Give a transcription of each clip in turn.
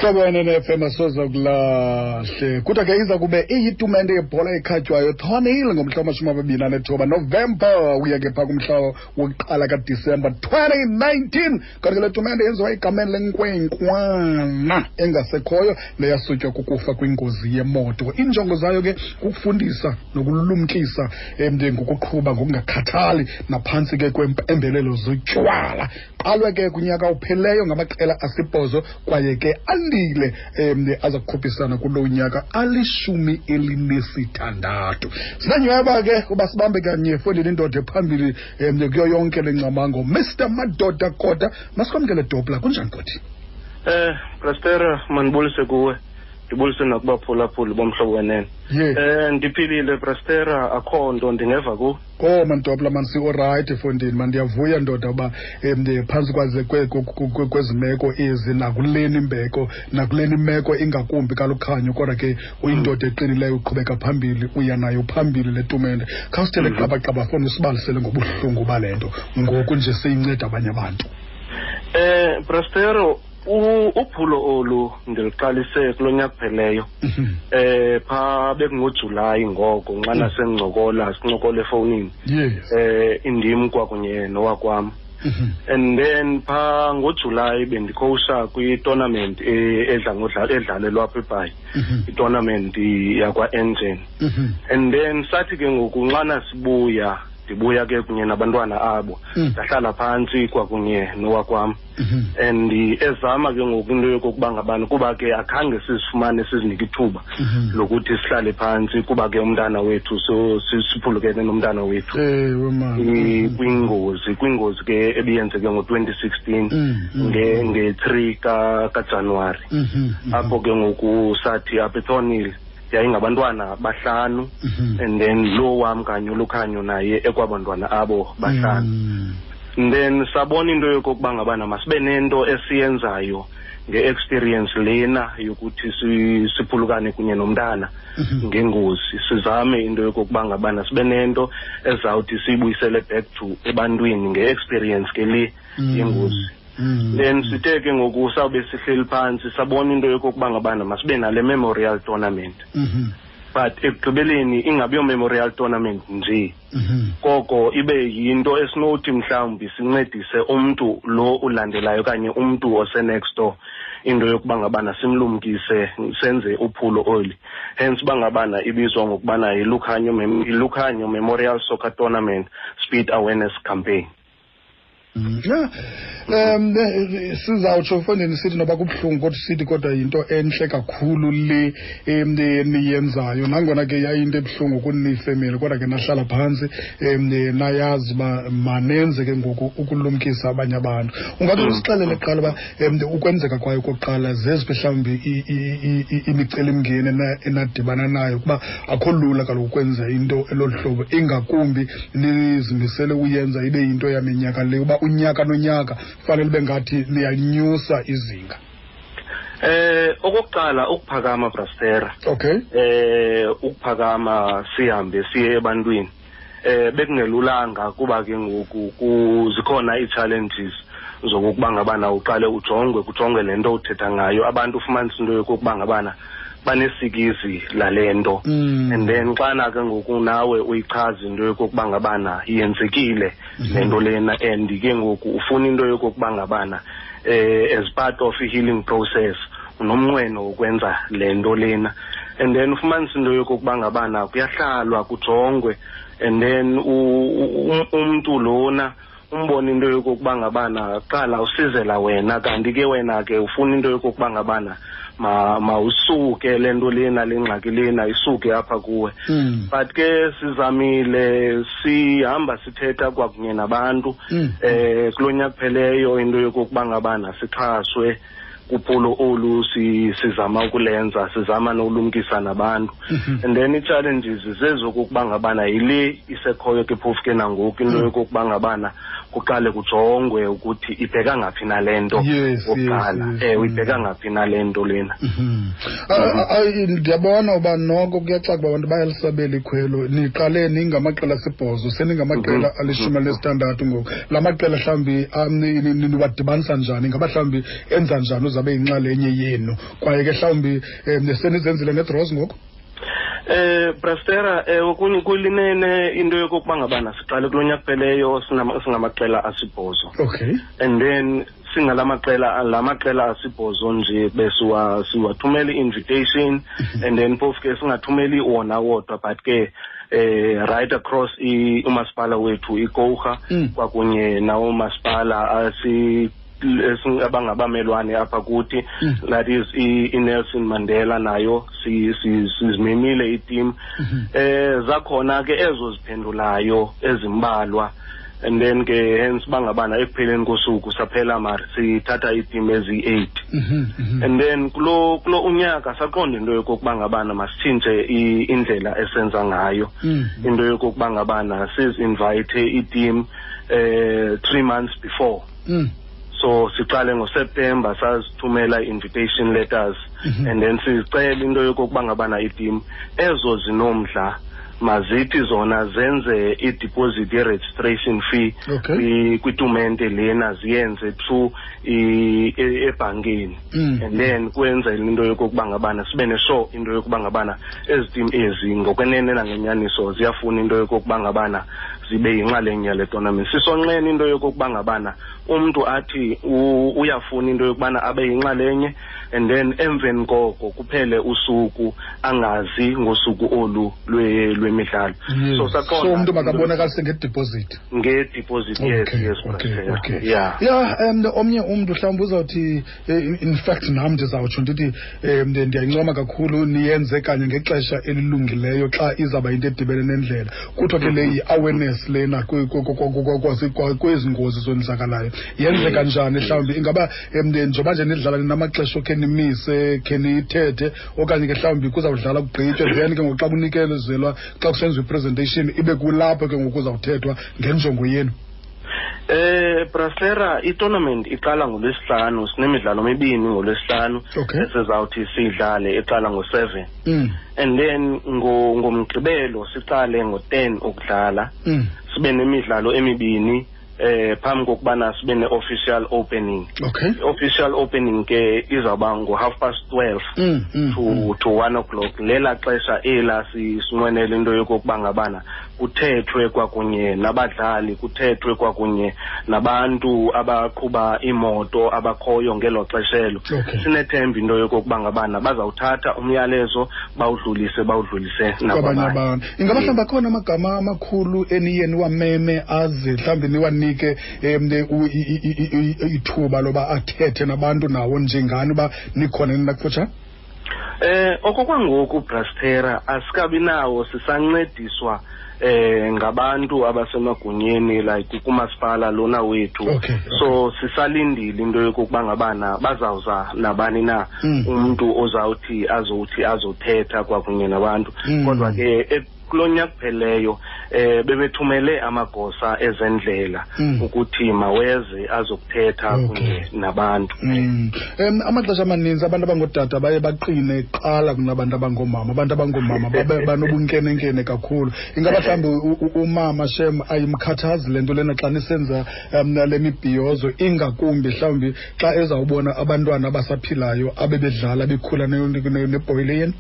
Mhlobo wenene FM, asoze kulahle. Kodwa ke iza kube iyitumente yebhola ekhatywayo Thornhill ngomhla wama-29 Novemba uya ke phaa kumhla wokuqala kaDisemba 2019. Kanti ke le tumente yenziwa egameni lenkwenkwana engasekhoyo neyasutywa kukufa kwingozi yemoto. Iinjongo zayo ke kukufundisa nokulumkisa ngokuqhuba ngokungakhathali naphantsi ke kwempembelelo zotywala. Qalwe ke kunyaka upheleyo ngamaqela asibhozo kwaye ke andile aza kukhuphisana kulo nyaka ali-16. Sinanyweba ke uba sibambe kanye efondini indoda ephambili kuyo yonke le ngcamango, Mr Madoda Kota. Masikwamkele Dopla, kunjani Koti? Prastera, mandibulise kuwe, ndibulise nakubaphulaphuli bomhlobo wenene. Ndiphilile Prastera, akho nto ndingeva ku. Oh mandopla, man, si-orayithi efondini, mandiyavuya ndoda uba phantsi kwaze kwezi meko ezi nakuleni imbeko nakuleni imeko ingakumbi kaLukhanyo, kodwa ke uyindoda eqinileyo, uqhubeka phambili, uya nayo phambili le tumente. Khawusithele qabaqaba fona, usibalisele ngobuhlungu bale nto ngoku nje seyinceda abanye abantu. Prastero, uphulo olu ndiluqalise kulo nyaka kupheleyo. Pha bekungoJulayi ngoko nxana sencokola, sincokola efowunini. Indim kwakunye nowakwam. And then pha ngoJulayi bendikhowusha kwi-tournament edla ngodlala edlalelwa apha eBhayi. I-tournament yakwa-Engen. And then sathi ke ngoku nxana sibuya, ndibuya ke kunye nabantwana abo. Ndahlala phantsi kwakunye nowakwam. And ezama ke ngoku into yokokuba ngabani, kuba ke akhange sizifumane sizinike ithuba lokuthi sihlale phantsi, kuba ke umntana wethu so siphulukene nomntana wethu. Ewe, man. Kwingozi ke ebiyenzeke ngo-2016 nge-3 kaJanuwari. Apho ke ngoku sathi apha eThornhill yayingabantwana bahlanu, and then lo wam kanye uLukhanyo naye ekwabantwana abo bahlanu. And then sabona into yokokuba ngabana masibe nento esiyenzayo nge-experience lena yokuthi siphulukane kunye nomntana ngengozi, sizame into yokokuba ngabana sibe nento ezawuthi siyibuyisele back to ebantwini nge-experience ke le yengozi. Then sithe ke ngoku sawube sihleli phantsi, sabona into yokokuba ngabana masibe nale memorial tournament. But ekugqibeleni ingabi yo memorial tournament nje, koko ibe yinto esinothi mhlawumbi sincedise umntu lo ulandelayo okanye umntu ose-next door, into yokuba ngabana simlumkise, senze uphulo oli. Hence uba ngabana ibizwa ngokubana yiLukhanyo Memorial Soccer Tournament Speed Awareness Campaign. Yeah. Sizawutsho mfondini sithi noba kubuhlungu, kodwa sithi kodwa yinto entle kakhulu le niyenzayo, nangona ke yayinto ebuhlungu kunifemeli, kodwa ke nahlala phantsi nayazi uba manenze ke ngoku ukulumkisa abanye abantu. Ungathi usixelele kuqala uba ukwenzeka kwayo kokuqala zeziphi mhlawumbi imicelimngeni enadibana nayo, kuba akho lula kaloku ukwenza into elolu hlobo, ingakumbi nizimisele uyenza ibe yinto yaminyaka le, uba unyaka nonyaka fanele ube ngathi niyanyusa izinga. Okokuqala ukuphakama, Brastera. Ukuphakama sihambe siye ebantwini. Bekungelulanga kuba ke ngoku zikhona ii-challenges zokokuba ngabana uqale ujongwe, kujongwe le nto uthetha ngayo. Abantu ufumanisa into yokokuba ngabana banesikizi lale nto. And then xana ke ngoku nawe uyichaza into yokokuba ngabana yenzekile le nto lena, and ke ngoku ufuna into yokokuba ngabana as part of i-healing process unomnqweno wokwenza le nto lena, and then ufumanisa into yokokuba ngabana kuyahlalwa kujongwe, and then umntu lona umbone into yokokuba ngabana qala usizela wena, kanti ke wena ke ufuna into yokokuba ngabana mawusuke le nto lena, le ngxaki lena isuke apha kuwe. But ke sizamile, sihamba sithetha kwakunye nabantu. Kulo nyaka kupheleyo into yokokuba ngabana sixhaswe kuphulo olu sizama ukulenza, sizama nokulumkisa nabantu. And then ii-challenges zezokokuba ngabana yile isekhoyo ke phofu ke nangoku into yokokuba ngabana kuqale kujongwe ukuthi ibheka ngaphi nale nto okokuqala. Ewe, ibheka ngaphi nale nto lena. Ndiyabona uba noko kuyacaca uba abantu bayalisabela ikhwelo. Niqale ningamaqela 8, seningamaqela 16 ngoku. La maqela mhlawumbi niwadibanisa njani? Ingaba mhlawumbi enza njani? ukuze abe yinxalenye yenu, kwaye ke mhlawumbi senizenzile ngedraws ngoku? Brastera, kulinene into yokokuba ngabana siqale kulo nyaka kupheleyo singamaqela 8. And then singalamaqela 8 nje besiwathumela i-invitation, and then phofu ke singathumeli wona wodwa, but ke right across umasipala wethu iKouga, kwakunye nawo masipala abangabamelwane apha kuthi, that is iNelson Mandela, nayo sizimemile iteam. Zakhona ke ezo ziphendulayo ezimbalwa, and then ke hence bangabana ekupheleni kosuku saphela mar sithatha iteam ezi-8. And then kulo unyaka saqonda into yokokuba ngabana masitshintshe indlela esenza ngayo, into yokokuba ngabana sizinvite iteam 3 months before. So siqale ngoSeptember sazithumela invitation letters, and then sicela into yokokuba ngabana iteam ezo zinomdla mazithi zona zenze i-deposit ye-registration fee kwitumente lena, ziyenze through ebhankini. And then kwenzela into yokokuba ngabana sibe neshow into yokuba ngabana ezi team ezi ngokwenene nangenyaniso ziyafuna into yokokuba ngabana zibe yinxalenye yale tournament. Sisonqena into yokokuba ngabana umntu athi uyafuna into yokubana abe yinxalenye, and then emveni koko kuphele usuku angazi ngosuku olu lwemidlalo. So saqonda umntu makabonakalise ngedeposit. Ngedeposit, yes. Yeah. Omnye umntu mhlawumbi uzawuthi, in fact nam ndizawutsho ndithi ndiyayincoma kakhulu niyenze kanye ngexesha elilungileyo xa izawuba into edibene nendlela. Kuthiwa ke le yi-awareness lena kwezi ngozi zonzakalayo. Yenzeka njani mhlawumbi? Ingaba njengoba nje nidlala ninamaxesha okhe nimise, khe niyithethe, okanye ke mhlawumbi kuzawudlala kugqitywe, then ke ngoku xa kunikezelwa, xa kusenziwa i-presentation ibe kulapho ke ngoku kuzawuthethwa ngenjongo yenu? Brasera, i-tournament iqala ngoLwesihlanu, sinemidlalo emibini ngoLwesihlanu esizawuthi siyidlale, iqala ngo-7. And then ngoMgqibelo siqale ngo-10 ukudlala. Sibe nemidlalo emibini phambi kokubana sibe ne-official opening. Official opening ke izawuba ngo-12:30 to 1 o'clock. Lela xesha ela sinqwenela into yokokuba ngabana kuthethwe kwakunye nabadlali, kuthethwe kwakunye nabantu abaqhuba imoto abakhoyo ngelo xeshelo. Sinethemba into yokokuba ngabana bazawuthatha umyalezo bawudlulise nakwabanye abantu. Ingaba mhlawumbi akhona amagama amakhulu eniye niwameme aze mhlawumbi niwanike ithuba loba athethe nabantu nawo njengani uba nikhona nina kufutshane? Okokwangoku Brastera asikabi nawo, sisancediswa ngabantu abasemagunyeni like kumasipala lona wethu. So sisalindile into yokokuba ngabana bazawuza nabani na umuntu ozawuthi azothi azothetha kwakunye nabantu. Kodwa ke kulo nyaka kupheleyo bebethumele amagosa ezendlela ukuthi maweze azokuthetha kunye nabantu. Amaxesha amaninzi abantu abangootata baye baqine kuqala kunabantu abangoomama. Abantu abangoomama banobunkenenkene kakhulu. Ingaba mhlawumbi umama shem ayimkhathazi le nto lena xa nisenza le mibhiyozo, ingakumbi mhlawumbi xa ezawubona abantwana abasaphilayo abebedlala bekhula nebhoyile yenu?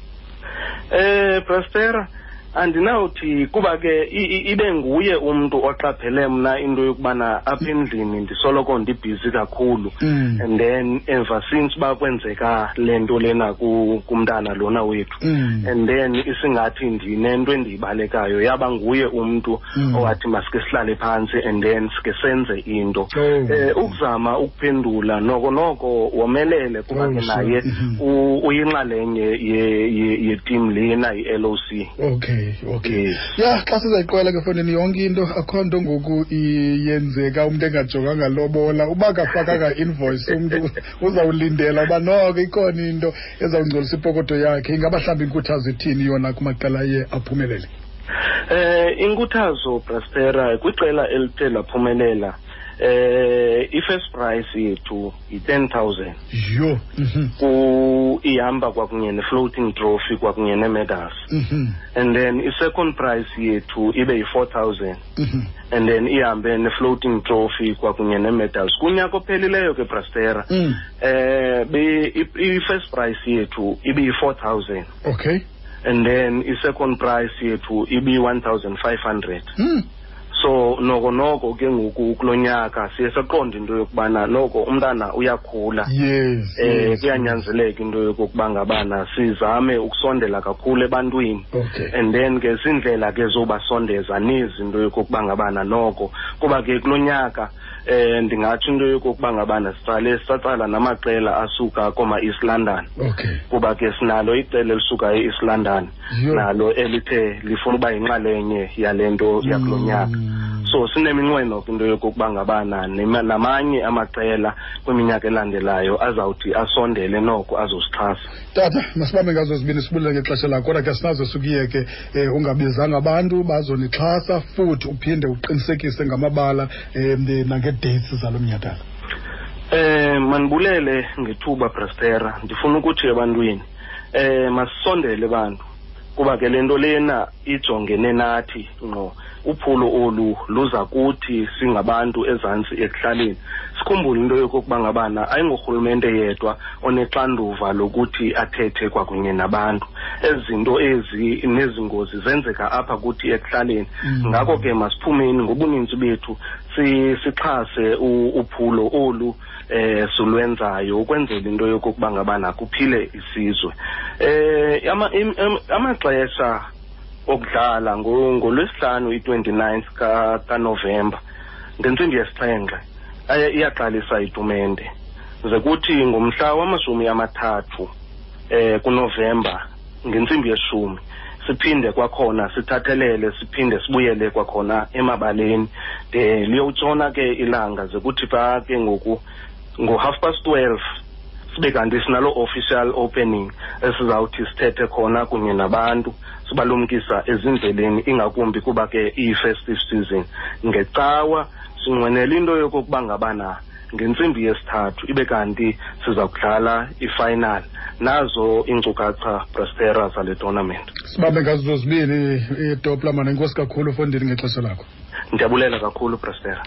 Brastera, andinawuthi kuba ke ibe nguye umuntu oqaphele mna into yokubana apha endlini ndisoloko ndibhizi kakhulu. And then ever since bakwenzeka le nto lena kumntana lona wethu, and then isingathi ndinento endiyibalekayo, yaba nguye umuntu owathi masike sihlale phantsi and then sike senze into. Ukuzama ukuphendula noko womelele kuba ke naye uyinxalenye ye-team lena i-LOC. Okay. Ya, xa sizayiqwela ke fondini yonke into, akho nto ngoku iyenzeka umntu engajonganga lobola. Uba akafakanga invoice umntu uzawulindela uba noko ikhona into ezawungcolisa ipokoto yakhe. Ingaba mhlawumbi inkuthazo ithini yona kumaqela aye aphumelele? Inkuthazo Brastera kwiqela elithe laphumelela, I-first prize yethu yi-10,000. Yho. Ku ihamba kwakunye ne-floating trophy kwakunye nee-medals. And then i-second prize yethu ibe yi-4,000. And then ihambe ne-floating trophy kwakunye nee-medals. Kunyaka ophelileyo ke, Brastera, i-first prize yethu ibe yi-4,000. And then i-second prize yethu ibi-1,500. So noko ke ngoku kulo nyaka siye saqonda into yokubana noko umntana uyakhula. Kuyanyanzeleka into yokokuba ngabana sizame ukusondela kakhulu ebantwini. And then ke sindlela ke zobasondeza nezi into yokokuba ngabana noko, kuba ke kulo nyaka ndingatsho into yokokuba ngabana siqale satsala namaqela asuka koma East London. Kuba ke sinalo iqela elisuka e-East London. Nalo elithe lifuna uba yinxalenye yale nto yakulo nyaka. So sineminqweno ke into yokokuba ngabana namanye amaqela kwiminyaka elandelayo azawuthi asondele noko azosixhasa. Tata, masibambe ngazo zibini, sibulele ngexesha lakho, kodwa ke sinazo sukuyeke ungabizanga abantu bazonixhasa, futhi uphinde uqinisekise ngamabala nange-dates zalo mnyhadala. Manibulele ngethuba, Brastera. Ndifuna ukuthi ebantwini masisondele bantu, kuba ke le nto lena ijongene nathi ngqo. Uphulo olu luza kuthi singabantu ezantsi ekuhlaleni. Sikhumbule into yokokuba ngabana ayingorhulumente yedwa onexanduva lokuthi athethe kwakunye nabantu. Ezi zinto ezi nezi ngozi zenzeka apha kuthi ekuhlaleni. Ngako ke masiphumeni ngobuninzi bethu sixhase uphulo olu silwenzayo ukwenzela into yokokuba ngabana kuphile isizwe. Amaxesha okudlala ngolwesihlanu i-29th kaNovemba ngentsimbi yesixhenxe iyaqalisa itumente. Ze kuthi ngomhla wama-30 kuNovemba ngentsimbi yeshumi siphinde kwakhona sithathelele, siphinde sibuyele kwakhona emabaleni de liyotshona ke ilanga. Ze kuthi pha ke ngoku ngo-12:30 sibe kanti sinalo official opening esizawuthi sithethe khona kunye nabantu, sibalumkisa ezindleleni, ingakumbi kuba ke iyi-festive season. Ngecawa sinqwenela into yokokuba ngabana ngentsimbi yesithathu ibe kanti siza kudlala i-final. Nazo iinkcukacha, Brastera, zale tournament. Sibambe ngazo zozibini, iTopla, mana. Enkosi kakhulu, fondini, ngexesha lakho. Ndiyabulela kakhulu, Brastera.